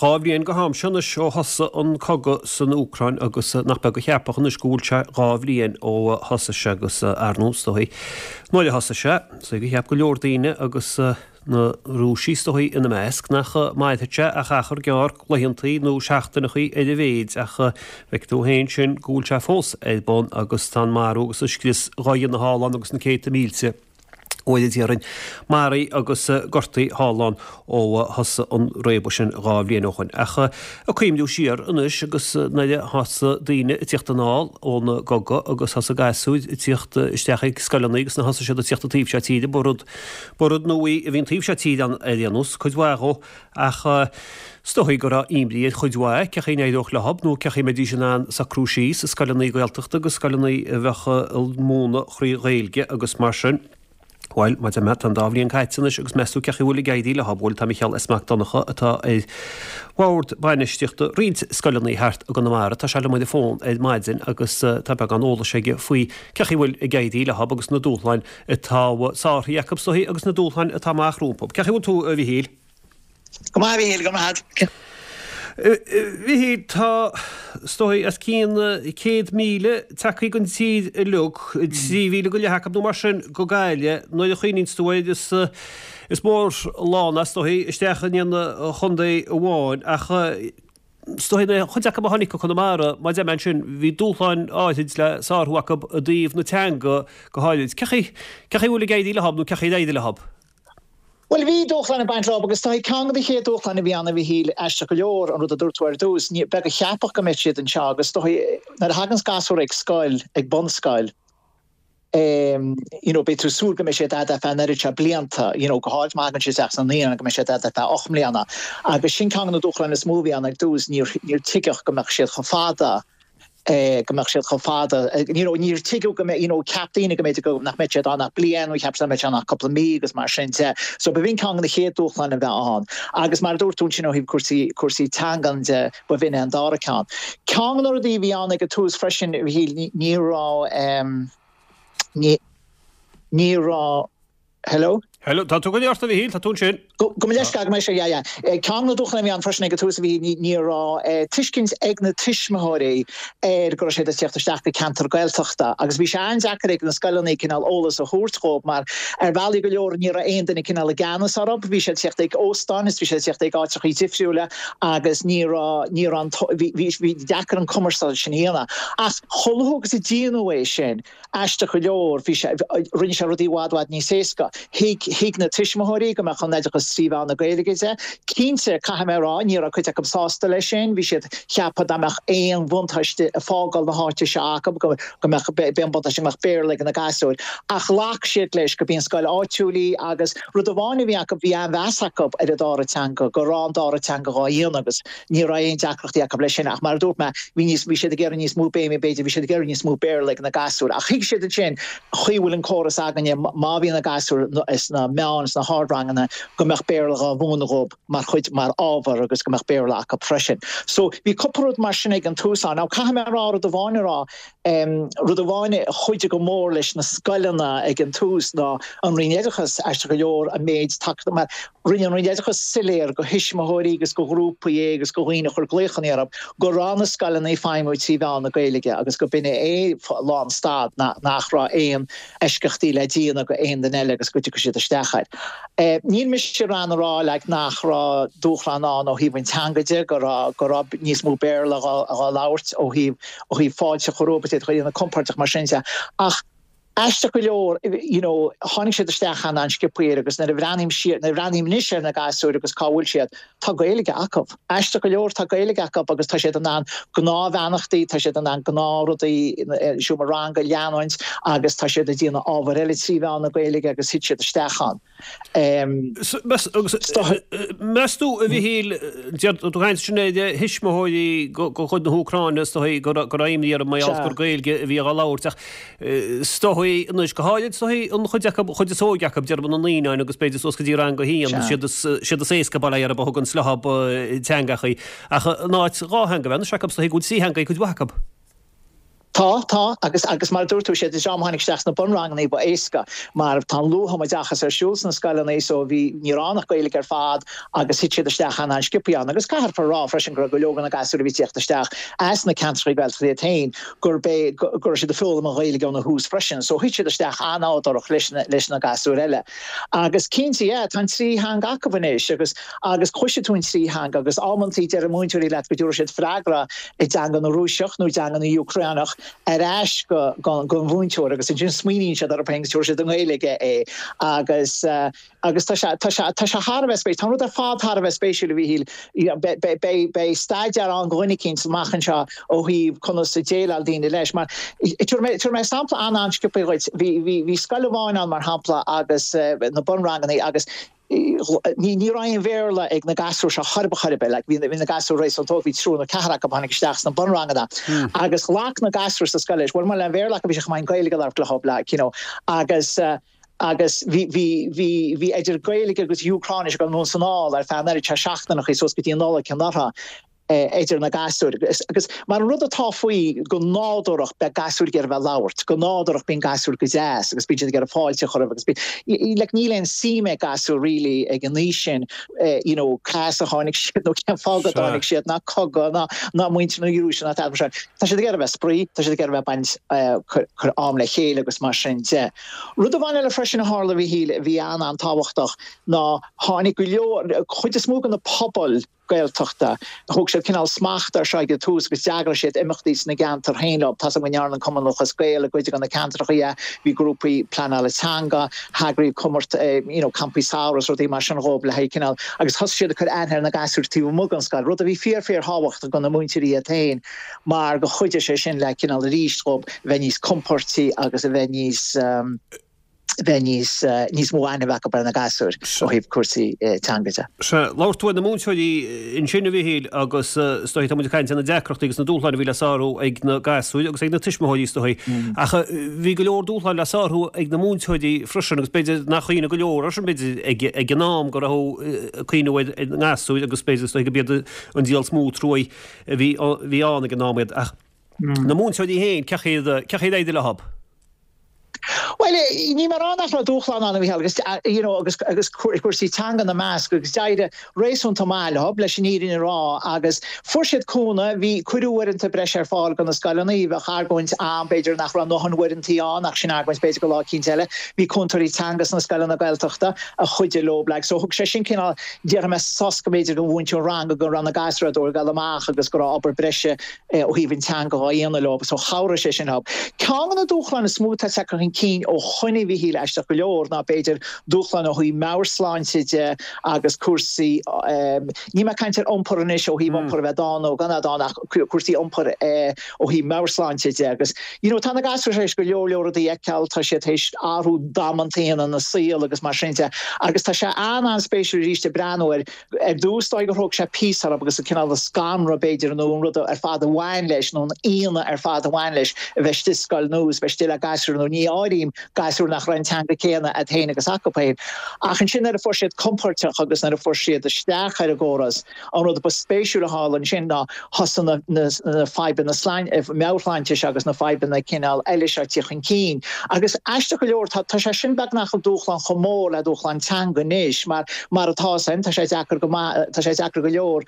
2 bhliain go ham seo anois ó thosaigh an cogadh san Úcráin agus nach beag a cheapfadh anois go bhfuil sé 2 bhliain ó thosaigh sé agus ar ndóigh is dóigh nuair a thosaigh sé, is dóigh gur cheap go leor daoine agus na Rúisigh is dóigh ina measc nach mairfeadh sé ach achar gearr laethantaí nó seachtaineachaí ar a mhéid ach feiceann tú féin sin go bhfuil sé fós ar bun agus tá an marú agus an scrios dhá dhéanamh thall ann agus na céadta mílte bhuel a déarfainn, maraithe agus gortaithe thall ann ó thosaigh an réabadh sin 2 bhliain ó shoin. Ach ag cuimhniú siar anois agus nuair a thosaigh daoine ag tíocht anall ón gcogadh agus thosaigh gasúir ag tíocht isteach ag scoileanna agus nuair a thosaigh siad ag tíocht an taobh seo tíre, ba rud, ba rud nua í a bhí an taobh seo tíre ann ar aon nós, cuid mhaith dhó. Ach is dóigh go raibh imní ar chuid mhaith cé chaoi a n-éireodh leothab nó cé chaoi a mbeidís in ann socrú síos i scoileanna Gaeltachta agus scoileanna a bheadh ag múineadh thrí Ghaeilge agus mar sin. Bhuel, mar a deir mé, tá an dá bhliain caite anois agus meas tú cé chaoi a bhfuil ag éirí leothab? Bhuel, tá Micheál S. Mac Donncha atá ar bhord bainistíochta roinnt scoileanna thart i gConamara, tá sé liom ar an bhfón ar maidin agus tá beagán eolais aige faoi cé chaoi a bhfuil ag éirí leothab agus na dúshláin atá sáraithe acu is dóigh agus na dúshláin atá amach rompu. Cé chaoi a bhfuil tú, a Mhichíl? Go maith, a Mhichíl, go maith. A Mhichíl, tá, is dóigh, os cionn 100,000 tagtha den tír uilig, 3,000 go leith acu nó mar sin go Gaillimh. Nuair a chuimhníonns tú air, is is mór lán é, is dóigh, isteach in aon chontae amháin ach, Is dóigh an chuid acu a tháinig go Conamara, mar a deir mé ansin, bhí dúshláin áithrid le sárú acu i dtaobh na teanga go háirid. Cé chaoi, cé chaoi a bhfuil ag éirí leothab nó cé chaoi ar éirigh leothab? Bhuel, bhí dúshláin ag baint leob agus is dóigh ceann de na chéad dúshláin a bhí ann a Mhichíl, aisteach go leor, an rud a dúirt tú ar dtús, ní, beag a cheapfadh go mbeadh siad anseo agus is dóigh nuair a thaganns gasúr ag scoil, ag bunscoil, you know, beidh tú ag súil go mbeidh siad a'd ar feadh an oiread seo blianta, you know, go háirid má thagann siad isteach sna naíonáin go mbeidh siad a'd ar feadh 8 mbliana. Agus sin ceann de na dúshláin is mó a bhí ann ar dtús, níor, níor tuigeadh go mbeadh siad chomh fada, eh, go mbeadh siad chomh fada, you know, níor tuigeadh go mbeadh, you know, cheap daoine go mb'fhéidir go, nach mbeadh siad ann ach bliain nó cheap siad nach mbeadh siad ann ach cúpla mí agus mar sin de. So b'in ceann de na chéad dúshláin a bheith ann. Agus mar a dúirt tú ansin ó thaobh cúrsaí, cúrsaí teangan de, Ba bh'in é an dara ceann. Ceann de na rudaí a bhí ann ag an tús freisin, a Mhichíl, ní raibh, ní, ní raibh, hello? Hello, tá tú go ort a Mhichíl, tá tú ansin. Go, gabh mo leithscéal, gabh mo leithscéal, yeah, yeah. Ceann de na dúshláin a bhí ann freisin ag an tús, a Mhichíl, ní, ní raibh tuiscint ag na tuismitheoirí ar go raibh siad ag tíocht isteach go ceantar Gaeltachta agus bhí sé an-deacair ag na scoileanna cineál eolas a thabhairt dhóibh mar ar bhealaí go leor ní raibh aon duine cineál i gceannas orthu, bhí siad ag tíocht ag óstáin is bhí siad ag tíocht ag áiteachaí difriúla agus ní raibh, ní raibh an, bhí, bhí, bhí deacair an cumarsáid sin a dhéanamh. Ach chomh luath agus a déanadh é sin, aisteach go leor, bhí sé, rinne sé rudaí i bhfad, bhfad níos éasca. Thuig, thuig na tuismitheoirí go mbeadh an oideachas trí mheán na Gaeilge de. Cinnte, caithfidh mé a rá, ní raibh cuid acu sásta leis sin, bhí siad, cheapfadh dá mbeadh aon bhuntáiste ag fágáil na háite seo acu, go, go mbeadh, b'é an buntáiste go mbeadh Béarla ag na gasúir. Ach ghlac siad leis go b'í an scoil áitiúil í agus, Rud amháin a bhí acu, bhí an-mheas acu ar an dara teanga, go raibh an dara teanga dhá dhéanamh agus ní raibh aon deacrachtaí acu leis sin. Ach mar a dúirt mé, bhí níos, bhí siad ag iarraidh níos mó béime, b'fhéidir, bhí siad ag iarraidh níos mó Béarla ag na gasúir. Ach thuig siad ansin, chaoi a bhfuil an córas againne, má bhíonn na gasúir sna meán, sna hardranganna, go mbeadh Béarla dhá mhúineadh dhóibh mar chuid, mar ábhar agus go mbeadh Béarla acu freisin. So, bhí cúpla rud mar sin ag an tús ann. Now, caithfidh mé a rá, rud amháin a rá, Rud amháin a chuidigh go mór leis na scoileanna ag an tús ná an Roinn Oideachais, aisteach go leor, an méid tacaíochta, mar rinne an Roinn Oideachais soiléir go thuismitheoirí agus go ghrúpaí agus go dhaoine a chuir glaochanna orthu go raibh na scoileanna ag feidhmiú trí mheán na Gaeilge agus go b'in é lánstad, nach raibh aon eisceachtaí le déanamh go aon duine eile agus go dtiocfadh siad isteach air. Níl mise in ann a rá like nach raibh dúshlán ann ó thaobh an teanga de, go raibh go raibh níos mó Béarla dhá labhairt ó thaobh ó thaobh fáilte a chur rompu, iad a chur compordach mar sin de. Ach aisteach go leor, you know, tháinig siad isteach an an-sciobtha air agus nuair a bhreathnaím siar, nuair a bhreathnaím anois ar na gasúir agus cá bhfuil siad, tá Gaeilge acu. Aisteach go leor, tá Gaeilge acu agus tá siad in ann gnáthbheannachtaí, tá siad in ann gnáthrudaí i seomra ranga a leanúint agus tá siad ag déanamh ábhair eile trí mheán na Gaeilge agus thit siad isteach ann. Meas tú, a Mhichíl, deir tú ag caint ansin ar thuismitheoirí de chuid na hÚcráine, is dóigh go raibh imní orthu mar gheall gur Gaeilge a bhí á labhairt ach is dóigh anois, go háirid is dóigh an chuid acu, chuid is óige acu, déarfainn na naíonáin agus b'fhéidir suas go dtí rang a haon, siad is éasca bail ó Dhia orthu a thugann leothab teangachaí ach in áit dhá theanga a bheith anois acu, is dóigh go bhfuil trí theanga ag cuid mhaith acu. Tá, tá, agus, agus mar a dúirt tú, siad an dream a tháinig isteach sna bunranganna ba éasca mar tá an luath-thumoideachas ar siúl sna scoileanna so bhí, ní raibh ann ach Gaeilge ar fad agus thit siad isteach an-an-sciobthaí ann. Agus caithfear a rá freisin go raibh go leor de na gasúir a bhí ag tíocht isteach as na ceantracha Gaeltachta iad féin gurb é, go raibh siad ag foghlaim an Ghaeilge óna thús freisin so thit siad isteach an-nádúrach leis na, leis na gasúir eile. Agus cinnte, yeah, tá an trí theanga acu anois agus, agus cloisfidh tú an trí theanga agus amantaí deir múinteoirí leat go dtabharfaidh siad freagra i dteanga na Rúiseach nó i dteanga na Úcráineach ar ais go don mhúinteoir agus ansin smaoiníonn siad orthu féin agus tabharfaidh siad i nGaeilge é agus agus tá sé tá sé tá sé thar a bheith spéisiúil. Tá an rud ar fad thar a bheith spéisiúil a Mhíchíl. Beidh beidh beidh staidéar ann do dhuine eicínt amach anseo ó thaobh conas a déileáil daoine leis mar tabharfaidh mé tabharfaidh mé sampla an-an-sciobtha dhuit. Bhí bhí bhí scoil amháin ann mar shampla agus na bunranganna agus Ní ní raibh aon Bhéarla ag na gasúir seo chor ar bith chor ar bith. Like bhí bhí na gasúir réasúnta óg, bhí triúr nó ceathrar acu a tháinig isteach sna bunranganna agus ghlac na gasúir sa scoil leis. Bhuel mura bhfuil aon Bhéarla acu bhí sé chomh maith an Gaeilge a labhairt leo like you know agus agus bhí bhí bhí bhí idir Gaeilge agus Úcráinis ag dul anonn is anall ar feadh an oiread seo seachtaineachaí suas go dtí an Nollaig anuraidh. idir na gasúir. Agus mar an rud atá faoi, go nádúrach beidh gasúir ag iarraidh bheith ag labhairt, go nádúrach bíonn gasúir go deas agus bíonn siad ag iarraidh fáilte a chur roimh agus bíonn, like níl aon suim ag gasúir really ag an aois sin you know cá as a tháinig siad nó cén fáth go dtáinig siad ná cogadh ná ná muintir na Rúise ná tada mar sin. Tá siad ag iarraidh bheith ag spraoi, tá siad ag iarraidh bheith ag baint cur cur am le chéile agus mar sin de. Rud amháin eile freisin a tharla a Mhíchíl a bhí an-an-tábhachtach ná tháinig go leor, chuid is mó de na pobail, Gaeltachta. Thóg siad cineál smacht air seo ag an tús agus d'eagraigh siad imeachtaí sna gceantair féin leo. Tá's agam go ndearna an Cumann Lúthchleas Gael i gcuid de na ceantracha é, bhí grúpaí pleanála teanga, eagraíodh comórt you know campaí samhraidh is rudaí mar sin dhóibh le haghaidh cineál agus thosaigh siad ag cur aithne ar na gasúir taobh amuigh den scoil, rud a bhí fíor fíor thábhachtach do na múinteoirí iad féin mar go chuidigh sé sin le cineál arís dhóibh bheith níos compóirtí agus a bheith níos. bheith níos, níos mó aithne acu ar na gasúir ó thaobh cúrsaí teanga de. Sea, labhair tú ar na múinteoirí ansin, a Mhichíl, agus is dóigh tá muid ag caint ar na deacrachtaí agus na dúshláin a bhí le sárú ag na gasúir agus ag na tuismitheoirí is dóigh. Ach bhí go leor dúshláin le sárú ag na múinteoirí freisin agus b'fhéidir nach cuimhneamh go leor air sin b'fhéidir ag, ag an am go raibh ag cuimhneamh ar na gasúir agus b'fhéidir is dóigh go b'iad an díol is mó truaí a bhí, bhí ann ag an am iad. Ach na múinteoirí féin, cén chaoi a, cén chaoi ar éirigh leo? Bhuel, níl mé ag rá nach raibh dúshlán ann, a Mhícheál, agus, you know, agus, agus cúrsaí teanga ina measc, agus d'éirigh réasúnta maith leo, leis an fhírinne a rá, agus fuair siad cúnamh, bhí, cuireadh uaireanta breise ar fáil do na scoileanna, bheadh argóint ann, b'fhéidir, nach raibh a ndóthain uaireantaí ann, ach sin argóint b'fhéidir do lá eicínt eile. Bhí cúntóirí teanga sna scoileanna Gaeltachta a chuidigh leo, like, so thug sé sin cineál, déarfaidh mé, sos go mb'fhéidir don mhúinteoir ranga go raibh na gasúir ag dul amach agus go raibh obair breise ó thaobh an teanga dhá dhéanamh leo so chabhraigh sé sin leo. Ceann de na dúshláin is mó atá tagtha chun cinn ó shoin a Mhíchíl aisteach go leor ná b'fhéidir dúshláin ó thaobh meabhairshláinte de agus cúrsaí, níl mé ag caint ar iompar anois ó thaobh iompar a bheith dána nó gan a bheith dána ach cúrsaí iompair ó thaobh meabhairshláinte de agus you know tá na gasúir tar éis go leor leor rudaí a fheiceáil, tá siad tar éis athrú damanta a dhéanamh ina saol agus mar sin de agus tá sé an-an-spéisiúil arís ag breathnú ar Ar dtús, dóigh gur thóg sé píosa orthu agus an cineál scanradh, b'fhéidir, nó an rud ar fad a bhain leis, nó an ionadh ar fad a bhain leis, a bheith istigh i scoil nua is bheith istigh le gasúir nua. Ní áirím gasúir nach raibh an teanga céanna agat féin agus acu féin. Ach ansin nuair a fuair siad compóirteach agus nuair a fuair siad isteach ar an gcóras, an rud ba spéisiúil a tharla ansin ná thosaigh na na fadhbanna meabhairshláinte seo agus na fadhbanna cineál eile seo ag tíocht chun cinn. Agus aisteach go leor, tá sé sin beagnach an dúshlán chomh mór le dúshlán teanga anois, mar mar atá san, tá sé deacair go maith, tá sé deacair go leor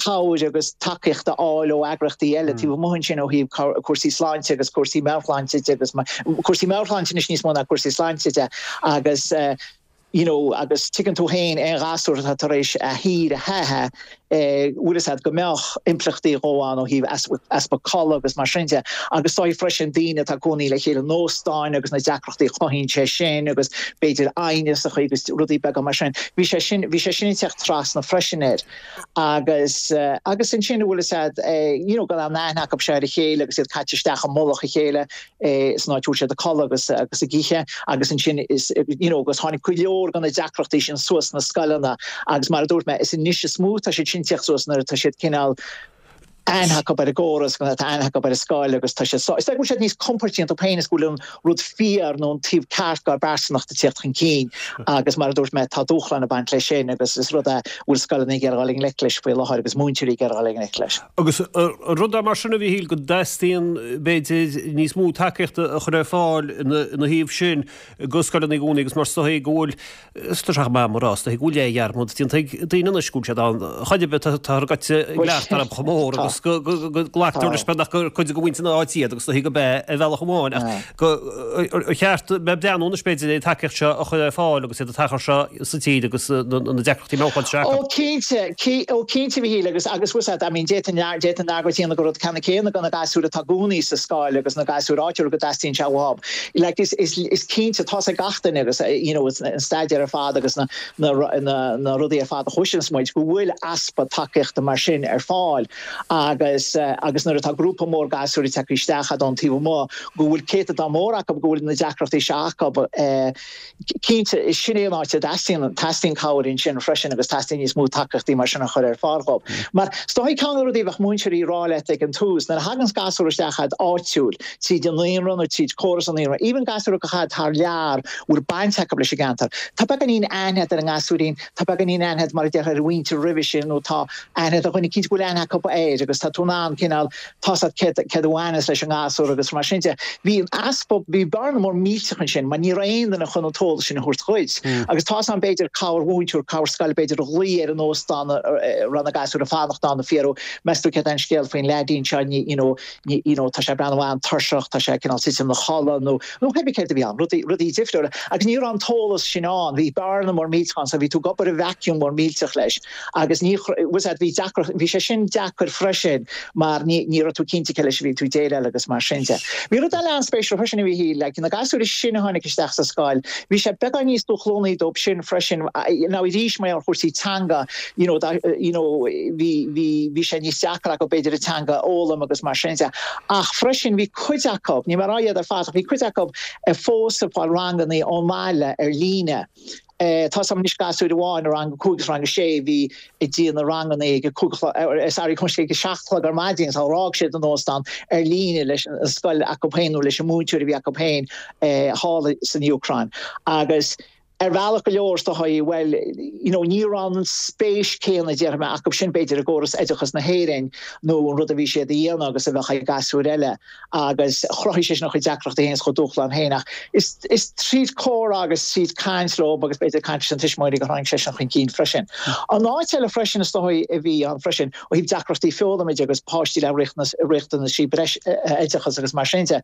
cabhair agus tacaíocht a fháil ó eagraíochtaí eile taobh amuigh ansin ó thaobh cúrsaí sláinte agus cúrsaí meabhairshláinte de agus cúrsaí meabhairshláinte anois níos mó ná cúrsaí sláinte de agus you know agus tuigeann tú féin aon ghasúr atá tar éis a thír a theitheadh, bhfuil fhios a'd go mbeadh impleachtaí dhó ann ó thaobh easpa codladh agus mar sin de agus dóigh freisin daoine atá ag cónaí le chéile in óstáin agus na deacrachtaí a chothaíonn sé sin agus b'fhéidir aighneas a agus rudaí beaga mar sin. Bhí sé sin, bhí sé sin ag teacht trasna freisin air agus agus ansin bhfuil fhios a'd you know gan aon aithne acu seo ar a chéile agus iad caite isteach i mullach a chéile. san áit a bhfuil siad ag codladh agus agus ag ithe agus ansin is you know agus tháinig go leor de na deacrachtaí sin suas sna scoileanna agus mar a dúirt mé is anois is mó tá siad sin ag tíocht suas nuair atá siad cineál. Aithne acu ar an gcóras, go tá aithne acu ar an scoil agus tá siad sá, is dóigh go bhfuil siad níos compordaí iontu féin is go bhfuil an rud fíor nó an taobh ceart dár bpearsanacht ag tíocht chun cinn agus mar a dúirt mé tá dúshlán ag baint leis sin agus is rud é a bhfuil scoileanna ag iarraidh dul i ngleic leis faoi láthair agus múinteoirí ag iarraidh dul i ngleic leis. Agus an rud é mar sin a Mhíchíl go dteastaíonn b'fhéidir níos mó tacaíochta a chur ar fáil ina thaobh sin do scoileanna i gcónaí agus mar is dóigh go bhfuil Is tá sé chomh maith mar rá, is dóigh go bhfuil leathdhearmad déanta ag daoine anois go bhfuil siad ann. Chor ar bith, táthar gaibhte i gcleachtadh orthu chomh mór agus go nglactar leis beagnach gur cuid de mhuintir na háite iad agus is dóigh gurb ea ar bhealach amháin ach gur cheart bheith ag breathnú anois b'fhéidir ar an tacaíocht seo a chur ar fáil agus iad ag teacht anseo sa tír agus na deacrachtaí meabhairshláinte seo acu. Ó cinnte, ó cinnte a Mhíchíl agus agus bhfuil a fhios agat, I mean d'fhéadfainn d'fhéadfainn argóint a dhéanamh gur rud ceannann céanna do na gasúir atá i gcónaí sa scoil agus na gasúir áitiúil go dteastaíonn sé uathu. Like is is is cinnte tá's ag gach duine agus you know an staidéar ar fad agus na na na na rudaí ar fad a chloiseanns muid go bhfuil easpa tacaíochta mar sin ar fáil agus agus nuair atá grúpa mór gasúir ag teacht isteach ón taobh amuigh go bhfuil céatadán mór acu go bhfuil na deacrachtaí seo acu eh Cinnte, sin é an áit a dteastaíonn, teastaíonn cabhair ansin freisin agus teastaíonn níos mó tacaíochtaí mar sin a chur ar fáil dhóibh. Mar is dóigh ceann de na rudaí a bheadh múinteoirí ag rá leat ag an tús, nuair a thaganns gasúr isteach agat áitiúil, tríd an naíonra nó tríd córas an naíonra, even gasúr a ghabh thar lear, bhfuil baint acu leis an gceantar, tá beagáinín aithne agat ar an ngasúirín, tá beagáinín aithne agat mar a déarfá ar a mhuintir roimhe sin nó tá aithne agat ar dhuine eicínt go bhfuil aithne acu air agus tá tú in ann cineál tá's agat céard céard a bhaineas leis an ngasúr agus mar sin de. Bhí an easpa, bhí bearna mór millteach ansin mar ní raibh aon duine chun an t-eolas sin a thabhairt dhuit. Agus tá's a'm b'fhéidir cabhair mhúinteoir, cabhair scoile b'fhéidir a ghlaoigh ar an óstán a raibh na gasúir ag fanacht ann ag fiafraí, meas tú céard é an scéal faoin leaidín seo, ní, you know, ní, you know, tá sé ag breathnú an-tuirseach, tá sé cineál titim ina chodladh nó, nó pé céard a bhí ann, rudaí, rudaí difriúla. Agus ní raibh an t-eolas sin ann, bhí bearna mór millteach ann so bhí tú ag obair i vacuum mór millteach leis. Agus ní, bhfuil a fhios agat, bhí deacracht, bhí sé sin deacair freisin mar ní, ní raibh tú cinnte cé leis a bhí tú ag déileáil agus mar sin de. Bhí rud eile an-spéisiúil freisin a bhí, like, na gasúir is sine a tháinig isteach sa scoil, bhí sé beagán níos dúshlánaí dóibh sin freisin, now arís mar gheall ar chúrsaí teanga, you know, dá, you know, bhí, bhí, bhí sé níos deacra acu b'fhéidir an teanga a fhoghlaim agus mar sin de. Ach freisin bhí cuid acu, níl mé ag rá iad ar fad, ach bhí cuid acu fós ag fáil rangannaí ón mbaile ar líne. Tá's a'm anois gasúir amháin i rang a 5 agus rang a 6 a bhí ag déanamh rangannaí ag a 5 a chlog, sorry, ag a 7 a chlog ar maidin sula bhfág siad an óstán ar líne leis an scoil acu féin nó leis an múinteoir a bhí acu féin thall san Úcráin. Agus ar bhealach go leor is dóigh, bhuel, you know, ní raibh an spéis céanna, déarfaidh mé, acu sin b'fhéidir i gcóras oideachas na hÉireann nó an rud a bhí siad a dhéanamh agus a bheadh ag gasúir eile. agus chruthaigh sé sin a chuid deacrachtaí féin is a chuid dúshlán féin ach is is tríd comhrá agus tríd caint leo agus b'fhéidir caint leis na tuismitheoirí gur tháinig sé sin chun cinn freisin. An áit eile freisin is dóigh a bhí ann freisin ó thaobh deacrachtaí foghlama de agus páistí le riachtanaisí breis oideachais agus mar sin de,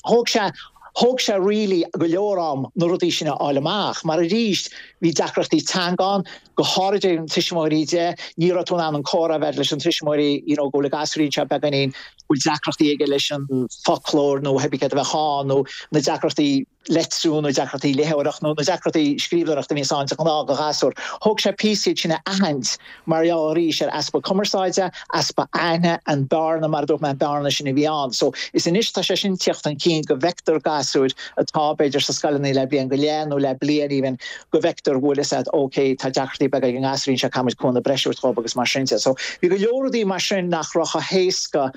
thóg sé thóg sé really go leor am na rudaí sin a fháil amach mar arís bhí deacrachtaí teanga ann, go háirid ó thaobh na tuismitheoirí de, ní raibh tú in ann an comhrá a bheith leis an tuismitheoirí you know go bhfuil an gasúirín seo beagáinín bhfuil deacrachtaí aige leis an foclóir nó pé céard a bheadh ann nó na deacrachtaí leitriú nó deacrachtaí léitheoireachta nó na deacrachtaí scríbhneoireachta a bhíonns ann de ghnáth do ghasúr. Thóg sé píosa iad sin a aithint mar gheall arís ar easpa cumarsáide, easpa aithne, an bearna, mar a dúirt mé, an bearna sin a bhí ann. So is anois tá sé sin tíocht chun cinn go bhfeictear gasúir atá b'fhéidir sa scoileanna le bliain go leith nó le bliain even go bhfeictear go bhfuil fhios a'd ok tá deacrachtaí beaga ag an ngasúirín seo caithfimid cúnamh breise a thabhairt dhób agus mar sin de. So bhí go leor rudaí mar sin nach raibh chomh héasca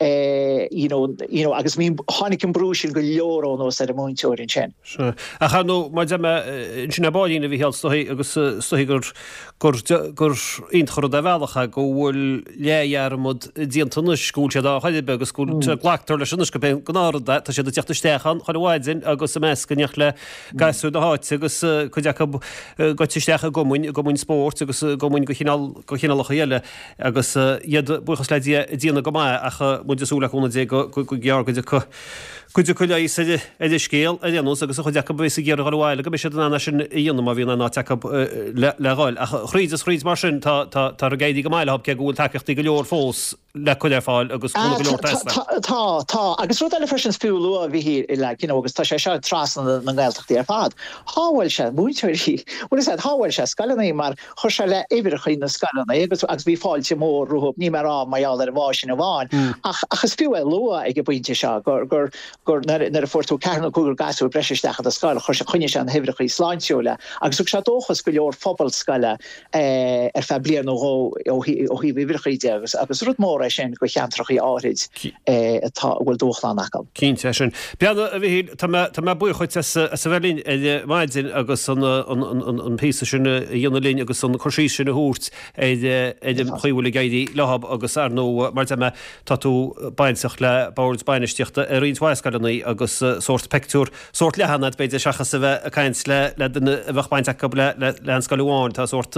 eh you know you know agus bhí tháinig an brú sin go leor anuas ar an múinteoir ansin. Sea. Ach ar ndóigh mar a deir mé ansin ar baillín a Mhícheáil is dóigh agus is dóigh gur gur gur iontach an rud ar bhealach é go bhfuil leathdhearmad déanta anois go bhfuil siad ann chor ar bith agus go bhfuil glactar leis anois gurb é an gnáthrud é tá siad ag teacht isteach ann chuile mhaidin agus ag meascadh in éineacht le gasúir na háite agus cuid acu gaibhte isteach i gcumainn, i gcumainn spóirt agus i gcumainn de chineál, de chineálacha eile agus iad, buíochas le Dia, ag déanamh go maith ach muid ag súil le cúnamh Dé go gearr go dtiocfaidh cuid acu leigheas ar an scéal ar aon nós agus an chuid acu a bheas ag iarraidh dhul abhaile go mbeidh siad in ann é sin a dhéanamh má bhíonn aon áit acu le dhul. Ach thríd is thríd mar sin tá, tá, tá ag éirí go maith leo cé go bhfuil tacaíochtaí go leor fós le cur ar fáil agus cúnamh go leor ag teastáil. Tá, tá. Agus rud eile freisin is fiú a lua, a Mhíchíl, like, you know, agus tá sé seo trasna na nGaeltachtaí ar fad, shábháil sé múinteoirí, bhfuil fhios a'd, shábháil sé scoileanna mar chuir sé le uimhreacha na scoileanna agus agus bhí fáilte mhór rompu, níl mé ag rá mar gheall ar an bhfáth sin amháin, ach ach is fiú é a lua ag an bpointe seo gur gur. gur nuair a fuair tú ceathrar nó cúigear gasúr breise isteach i do scoil, chuir sé, choinnigh sé na huimhreachaí sláintiúil agus thug sé dóchas go leor phobal scoile ar feadh bliain nó dhó ó thaobh uimhreachaí de agus agus rud mór é sin do cheantrachaí áithrid atá, a bhfuil dúshlán acu. Cinnte é sin. Breathnaigh, a Mhichíl, tá mé, tá mé buíoch dhuit as a bheith linn ar maidin agus an, an, an, an píosa sin a dhéanamh linn agus an cur síos sin a thabhairt ar, ar an chaoi a bhfuil ag éirí leo agus ar ndóigh, mar a deir mé, tá tú bainteach le boird bainistíochta i roinnt mhaith scoileanna agus sórt peictiúr, sórt leathan agat b'fhéidir seachas a bheith ag caint le le duine a bheadh baint acu le le le aon scoil amháin. Tá sórt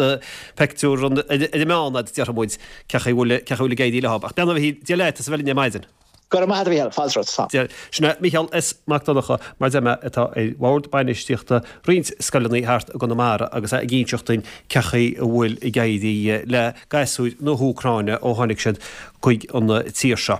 peictiúr ar an meán agat déarfaidh muid cé chaoi a bhfuil cé chaoi a bhfuil ag éirí leo. Ach breathnaigh a Mhichíl, Dia leat as a bheith linn ar maidin. Go raibh maith agat a Mhichíl, fáilte romhat. Slán. Dia, sin é Micheál S. Mac Donncha, mar a deir mé, atá ar bhord bainistíochta roinnt scoileanna thart i gConamara agus é ag inseacht duinn cé chaoi a bhfuil ag éirí le gasúir na hÚcráine ó tháinig siad chuig an tír seo.